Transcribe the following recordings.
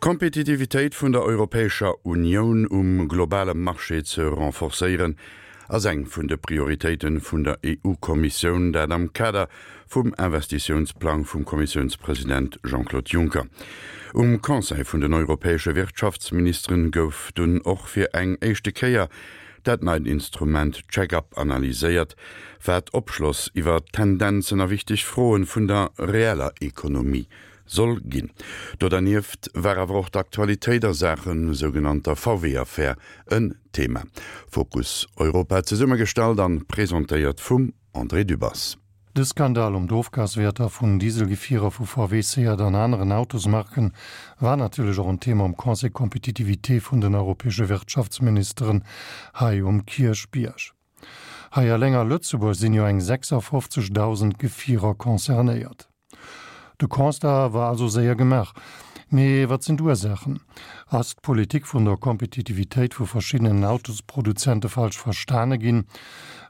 D'Kompetitivitéit vun der Europäescher Unioun um globale Marché ze renforcéieren, ass eng vun de Prioritéite vun der EU-Kommissioun, dat am Kader vum Investitiounsplang vum Kommissiounspresident Jean-Claude Juncker. Um Conseil vun den europäesche Wirtschaftsministeren gouf dunn och fir eng éischte Kéier dat neit Instrument Check-up analyséiert, wat Opschloss iwwer Tendenzen a wichteg Froen vun der reeller Ekonomie soll ginn. Do dernieft war awer och d'Aktualitéit a Saache sougenannter VW-Affär en Thema. Fokus Europa zesummegestallt an presentéiert vum André Dübbers. De Skandal ëm d'Ofgaswäerter vun Dieselgefierer vu VW, Seat an aneren Autosmarken war natierlech och en Thema um Conseil Compétitivité vun den europäesche Wirtschaftsministeren hei um Kierchbierg. Hei eleng a Lëtzebuerg sinn jo eng 56.000 Gefierer concernéiert. De Constat war also séier gemaach. Mee wat sinn d'Ursaachen? Ass d'Politik vun der Kompetitivitéit vu verschiddenen Autosproduzente falsch verstane ginn?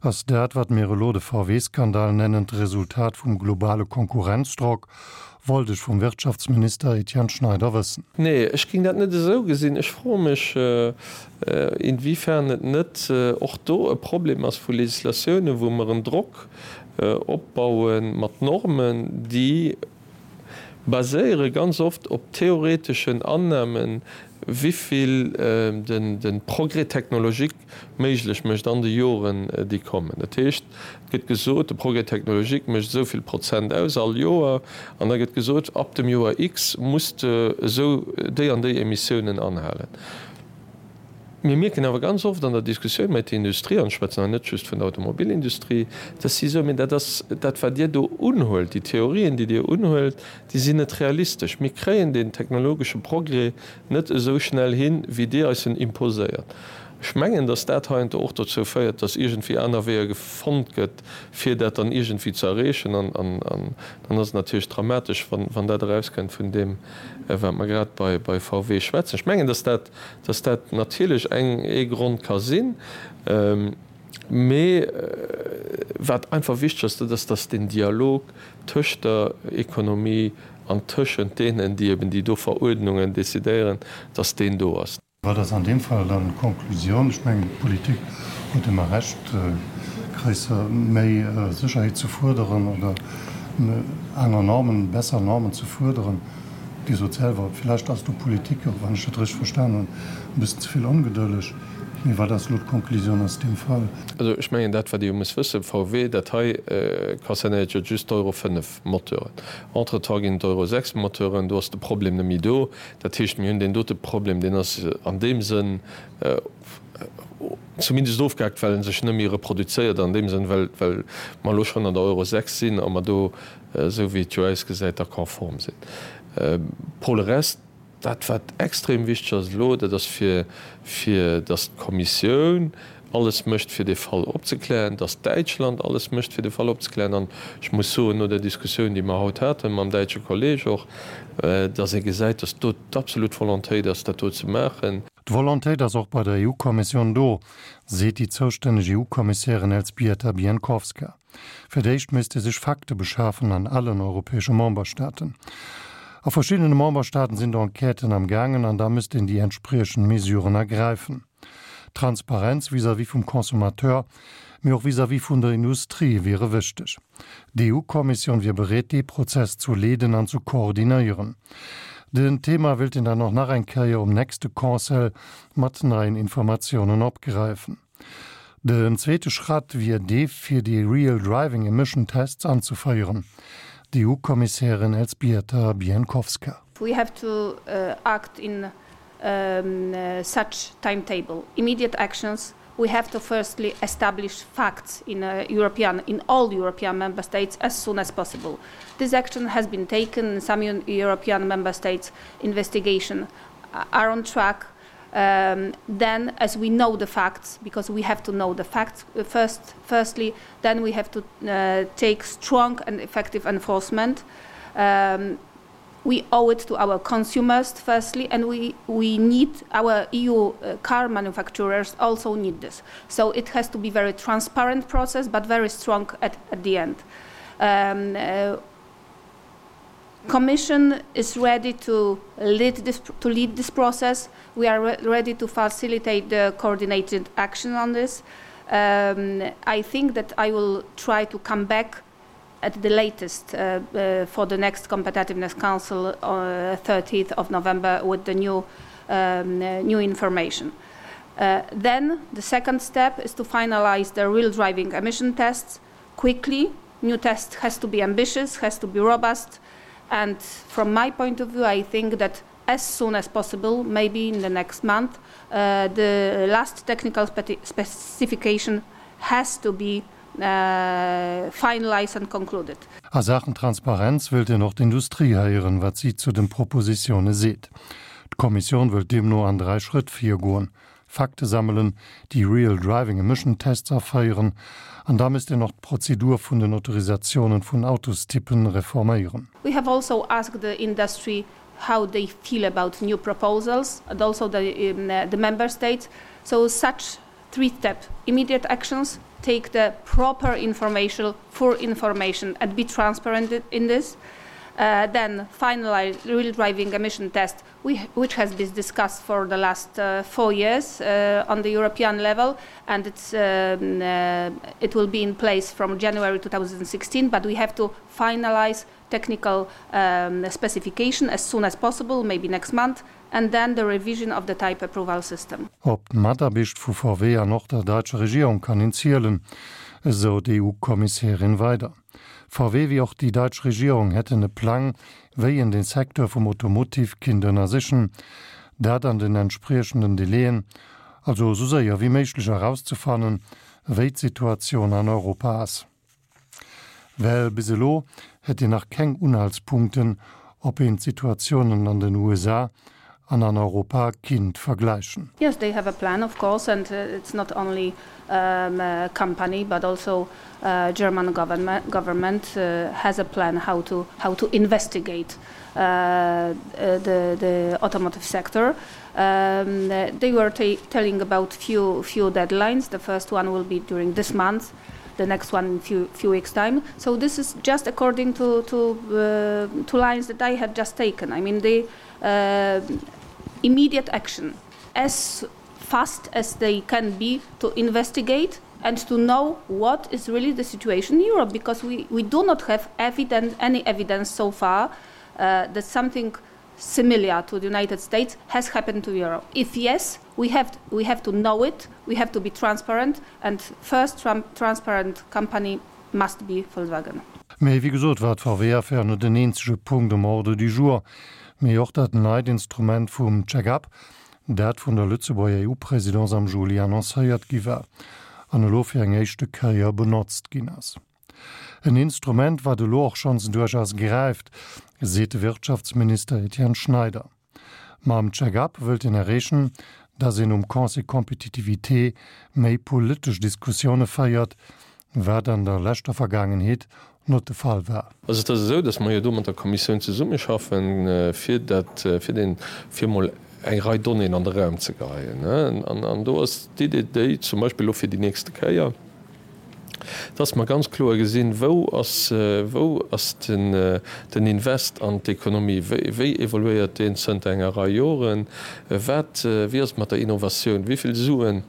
Ass dat, wat mir elo de VW-Skandal nennen, d'Resultat vum globale Konkurrenzdrock? Wollt ech vum Wirtschaftsminister Etienne Schneider wëssen. Nee, ech géing dat net esou gesinn. Ech froe mech, inwiefern et net och do e Problem ass vu Législatiounen, wou mer en Drock opbaue mat Normen, déi baséiere ganz oft op theoreteschen Annahmen, wivill de Progrès technologique méiglech mécht an de Joren, déi kommen. Dat heescht, et gëtt gesot, de Progrès technologique mécht esou vill Prozent aus all Joer, an da gëtt gesot, ab dem Joer X muss de esou déi an déi Emissiounen anhalen. Mir mierken awer ganz oft an der Diskussioun mat der Industrie, an ech schwätzen hei net just vun der Automobilindustrie, dass si soen, Mee dat ass dat, wat Dir do unhuelt, déi Theorien, déi Dir unhuelt, déi sinn net realistesch. Mir kréien deen technologesche Progrès net esou schnell hin, wéi Dir eis en imposéiert. Ech mengen, dass dat heiansdo och dozou féiert, dass iergendwéi aner Weeër fonnt gëtt, fir dat dann iergendwéi ze erreechen. An dann ass et natierlech dramatesch, wann dat erauskënnt vun deem, wat mer grad bei VW schwätzen. Ech mengen, dass dat dass dat natierlech eng ee Grond ka sinn, mee wat einfach wichteg ass, dat ass, dass deen Dialog tëscht der Ekonomie an tëschent deenen, déi eben déi do Veruerdnungen decidéieren, dass deen do ass. Wat ass an deem Fall dann d'Konklusioun? Ech mengen, d'Politik huet ëmmer Recht, gréisser, méi Sécherheet ze fuerderen oder aner Normen, besser Normen ze fuerderen. Dir sot selwer, villäicht ass do Politik, och wann ech dat richteg verstan hunn, e bëssen ze vill ongedëlleg. Mee wat ass elo d'Konklusioun aus deem Fall? Also ech mengen, dat wat ee jo muss wëssen, VW, dat hei concernéiert jo just d'Euro 5 Moteuren. Entretemps ginn et Euro 6 Moteuren, do ass de Problem net méi do. Dat heescht, mir hunn deen dote Problem, deen ass an deem Sënn zumindest ofgehaakt, well en sech net méi reproduzéiert an deem Sënn, well mer elo schonn an der Euro 6 sinn a mer do esou wéi et jo ausgesäit, da konform sinn. Pour le reste, dat wat extrem wichteg ass elo, dat ass fir, fir datt d'Kommissioun alles mécht fir dee Fall opzeklären, datt Däitschland alles mécht fir de Fall opzeklären. An ech muss soen, no der Diskussioun, déi mer haut hate mam däitsche Kolleg och, datt ee gesäit, datt do d'absolut Volontéit ass, dat do ze maachen. D'Volontéit ass och bei der EU-Kommissioun do, seet déi zoustänneg EU-Kommissärin Elzbieta Bienkowska. Fir d'éischt misst ee sech Fakte beschafen an allen europäesche Memberstaaten. A verschiddene Memberstaaten sinn d'Enquêten am gaangen an da misst een déi entspriechend Mesuren ergräifen. Transparenz vis-à-vis vum Consommateur, mee och vis-à-vis vun der Industrie wiere wichteg. D'EU-Kommissioun wier bereet dee Prozess zu leeden an zu koordinéieren. Den Thema wéilt een dann och nach eng Kéier um nächste Conseil mat neien Informatiounen opgräifen. Den zweete Schratt wier dee fir déi Real Driving Emission Tests anzeféieren, d'EU-Kommissärin Elzbieta Bienkowska. We have to act in such timetable. Immediate actions, we have to firstly establish facts in European, in all European member states as soon as possible. This action has been taken in some European member states, investigation are on track. Then as we know the facts, because we have to know the facts first, firstly, then we have to take strong and effective enforcement. We owe it to our consumers firstly, and we, we need our EU car manufacturers also need this. So it has to be very transparent process, but very strong at, at the end. Commission is ready to lead this, to lead this process. We are re ready to facilitate the coordinated action on this. Um, I think that I will try to come back at the latest uh, uh, for the next Competitiveness Council uh, 30th of November with the new, um, uh, new information. Uh, then the second step is to finalize the real driving emission tests quickly. New test has to be ambitious, has to be robust. And from my point of view, I think that as soon as possible, maybe in the next month, uh, the last technical spe specification has to be uh, finalized and concluded. A Saachen Transparenz wëllt een och d'Industrie héieren, wat si zu den Propositioune seet. D'Kommissioun wëllt deemno an 3 Schrëtt virgoen, Fakte sammelen, déi Real Driving Emission Tests aféieren an da misst een och d'Prozedur vun den Autorisatiounen vun Autostypen reforméieren. We have also asked the industry how they feel about new proposals and also the, um, the member states. So such three-step immediate actions take the proper information for information and be transparent in this. Uh, then finalize real driving emission test, we, which has been discussed for the last uh, four years uh, on the European level, and it's, um, uh, it will be in place from January 2016. But we have to finalize technical um, specification as soon as possible, maybe next month, and then the revision of the type approval system. Op d'Mataarbecht vu VW an och der däitscher Regierung kann een zielen, esou d'EU-Kommissärin weider. VW wéi och déi däitsch Regierung hätten e Plang, wéi een de Secteur vum Automotive kinnt ënnersichen, dat an den entspriechenden Delaien, also esou séier wéi méiglech erauszefannen, wéi d'Situatioun an Europa ass. Well bis elo hätt een nach keng Unhaltspunkten, ob een d'Situatiounen an den USA an an Europa kinnt vergläichen. Yes, they have a plan, of course, and it's not only um, company, but also uh, German government, government uh, has a plan how to, how to investigate uh, the, the automotive sector. Um, they were telling about few, few deadlines. The first one will be during this month the next one in few few weeks time so this is just according to to uh, to lines that I had just taken I mean the uh, immediate action as fast as they can be to investigate and to know what is really the situation in Europe because we we do not have evidence any evidence so far uh, that something similar to the United States has happened to Europe if yes we have we have to know it we have to be transparent and first transparent company must be Volkswagen. Mee wéi gesot war d'VW-Affär net den eenzege Punkt um Ordre du jour, mee och dat neit Instrument vum Check-up, dat vun der Lëtzebuerger EU-Presidence am Juli annoncéiert gi war an elo fir eng éischte Kéier benotzt ginn ass. En Instrument, wat elo och schonns duerchaus gräift, seet de Wirtschaftsminister Etienne Schneider. Mam Check-up wëllt een erreechen, datt een um Conseil Compétitivité méi politesch Diskussioune féiert, wat an der leschter Vergaangenheet not de Fall war. Also et ass esou, datt mer jo do mat der Kommissioun zesummeschaffen, fir dat, fir deen, fir emol eng Rei Donnéeën an de Raum ze geheien. An do ass d'Idee déi, zum Beispill elo fir déi nächste Kéier, dass mer ganz kloer gesinn, wou ass, wou ass den, den Invest an d'Ekonomie, wéi, wéi evoluéiert deen zënter enger Rei Joren, wat, wéi ass et mat der Innovatioun, wéi vill Suen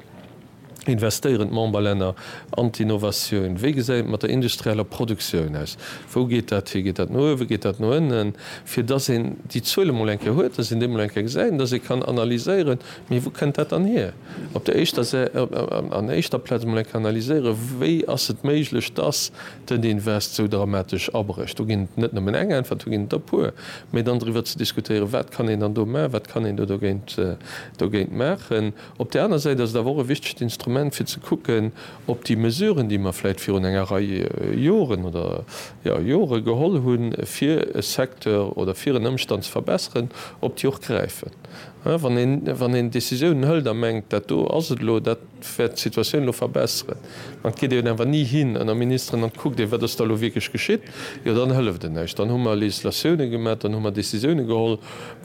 investéieren d'Memberlänner an d'Innovatioun, wéi gesäit et mat der industrieller Produktioun aus, wou geet dat hi, geet dat no uewen, geet dat no ënnen, fir dass een déi Zuele mol eng Kéier huet, dass een déi mol eng Kéier gesäit an dass ee kann analyséieren, mee wou kënnt dat dann hier? Op der éischter Sä an éischter Plaz emol eng Kéier analyséieren, wéi ass et méiglech, dass den Invest esou dramatesch abrécht. Do ginn et net nëmmen eng Äntwert, do ginn et der e puer. Mee dann driwwer ze diskutéieren, wat kann een dann do maachen, wat kann een do dogéint dogéint maachen. Op där aner Säit ass et awer och e wichtegt Instrument, fir ze kucken, ob déi Mesuren, déi mer vläicht virun enger Rei Joren oder, jo, Jore geholl hunn, fir e Secteur oder fir en Ëmstand ze verbesseren, ob déi och gräifen. Wann een, wann een Décisiounen hëlt a mengt, dat do ass et elo, dat wäert d'Situatioun elo verbesseren, an et geet een awer ni hin ënner Ministeren an et kuckt ee, wat ass da elo wierklech geschitt, jo dann hëlleft et näischt. Dann hu mer Législatioune gemaach, dann hu mer Décisioune geholl,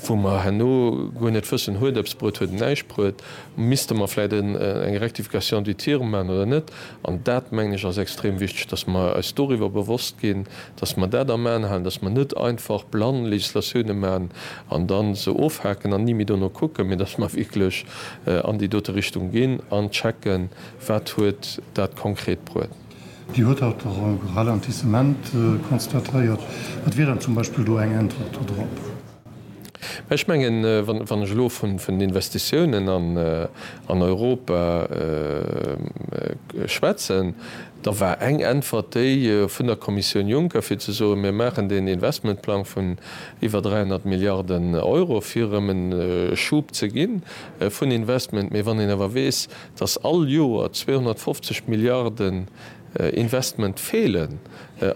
wou mer herno guer net wëssen, huet eppes bruet, huet et näischt bruet, misste mer vläicht eng Rectification du tir maachen oder net. An dat, mengen ech, ass extrem wichteg, dass mer eis doriwwer bewosst ginn, dass mer dat am Aen halen, dass mer net einfach blann Législatioune maachen an da se ofhaken an ni méi dono kucken, mee dass mer wierklech an déi dote Richtung ginn an checken, wat huet dat konkret bruet. Dir hutt haut och e Ralentissement constatéiert. Wat wier dann zum Beispill do eng Äntwert dodrop? Mä ech mengen, wann ech elo vun den Investitiounen an Europa schwätzen, da war eng Äntwert déi vun der Kommissioun Juncker, fir ze soen, mir maachen deen Investmentplang vun iwwer 300 Milliarden Euro, fir erëm e Schub ze gi vun Investment. Mee wann een awer weess, datt all Joer 250 Milliarden Investment feelen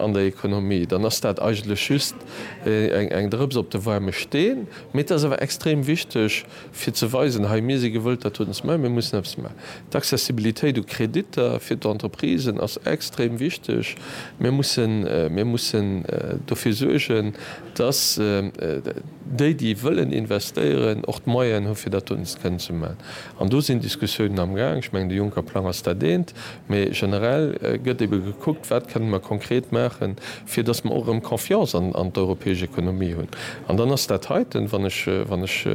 an der Ekonomie, dann ass dat eigentlech just eng Drëps op de waarme Steen. Mee et ass awer extrem wichteg, fir ze weisen, hei, mir si gewëllt, dat doten ze maachen, mir mussen eppes maachen. D'Accessibilitéit u Kreditter fir d'Entreprisen ass extrem wichteg. Mir mussen, mir mussen dofir suergen, dass déi, déi wëllen investéieren, och d'Moyenen hu fir dat doten ze kënnen ze maachen. An do sinn Diskussiounen amgaang. Ech mengen, de Juncker-Plang ass dat eent. Mee generell gëtt ebe gekuckt, wat kënnen mer konkret maachen, fir dass mer och erëm Confiance an d'europäesch Ekonomie hunn. An dann ass dat heiten, wann ech, wann ech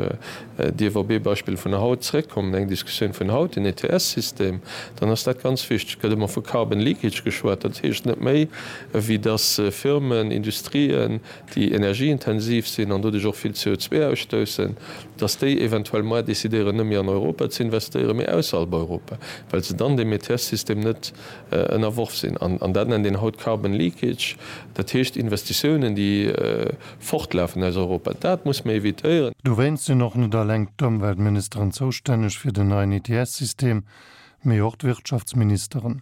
dierf op ee Beispill vun haut zrëckkommen, eng Diskussioun vun haut, den ETS-System, dann ass dat ganz wichteg. Et gëtt ëmmer vu Carbon leakage geschwat. Dat heescht net méi, wéi dass Firmen, Industrien, déi energieintensiv sinn an doduerch och vill CO2 ausstoussen, dass déi eventuell moar decidéieren, net méi an Europa ze investéieren, mee ausserhalb Europa, well se dann deem ETS-System net ënnerworf sinn. An dat nennt een haut Carbon leakage, dat heescht Investitiounen, déi fortlafen aus Europa. Dat muss mer évitéieren. Dowéinst sinn och net alleng d'Ëmweltministeren zoustänneg fir den neien ETS-System, mee och d'Wirtschaftsministeren.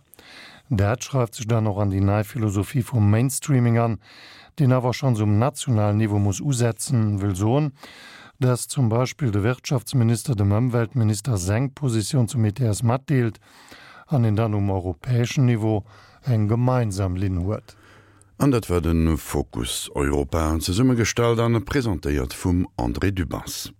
Dat schreift sech dann och an déi nei Philosophie vum Mainstreaming an, deen awer schonns um nationalen Niveau muss usetzen, wëll soen, dass zum Beispill de Wirtschaftsminister dem Ëmweltminister seng Positioun zum ETS matdeelt an een dann um europäeschen Niveau eng gemeinsam Linn huet. An dat war de Fokus Europa, zesummegestallt an presentéiert vum André Dübbers.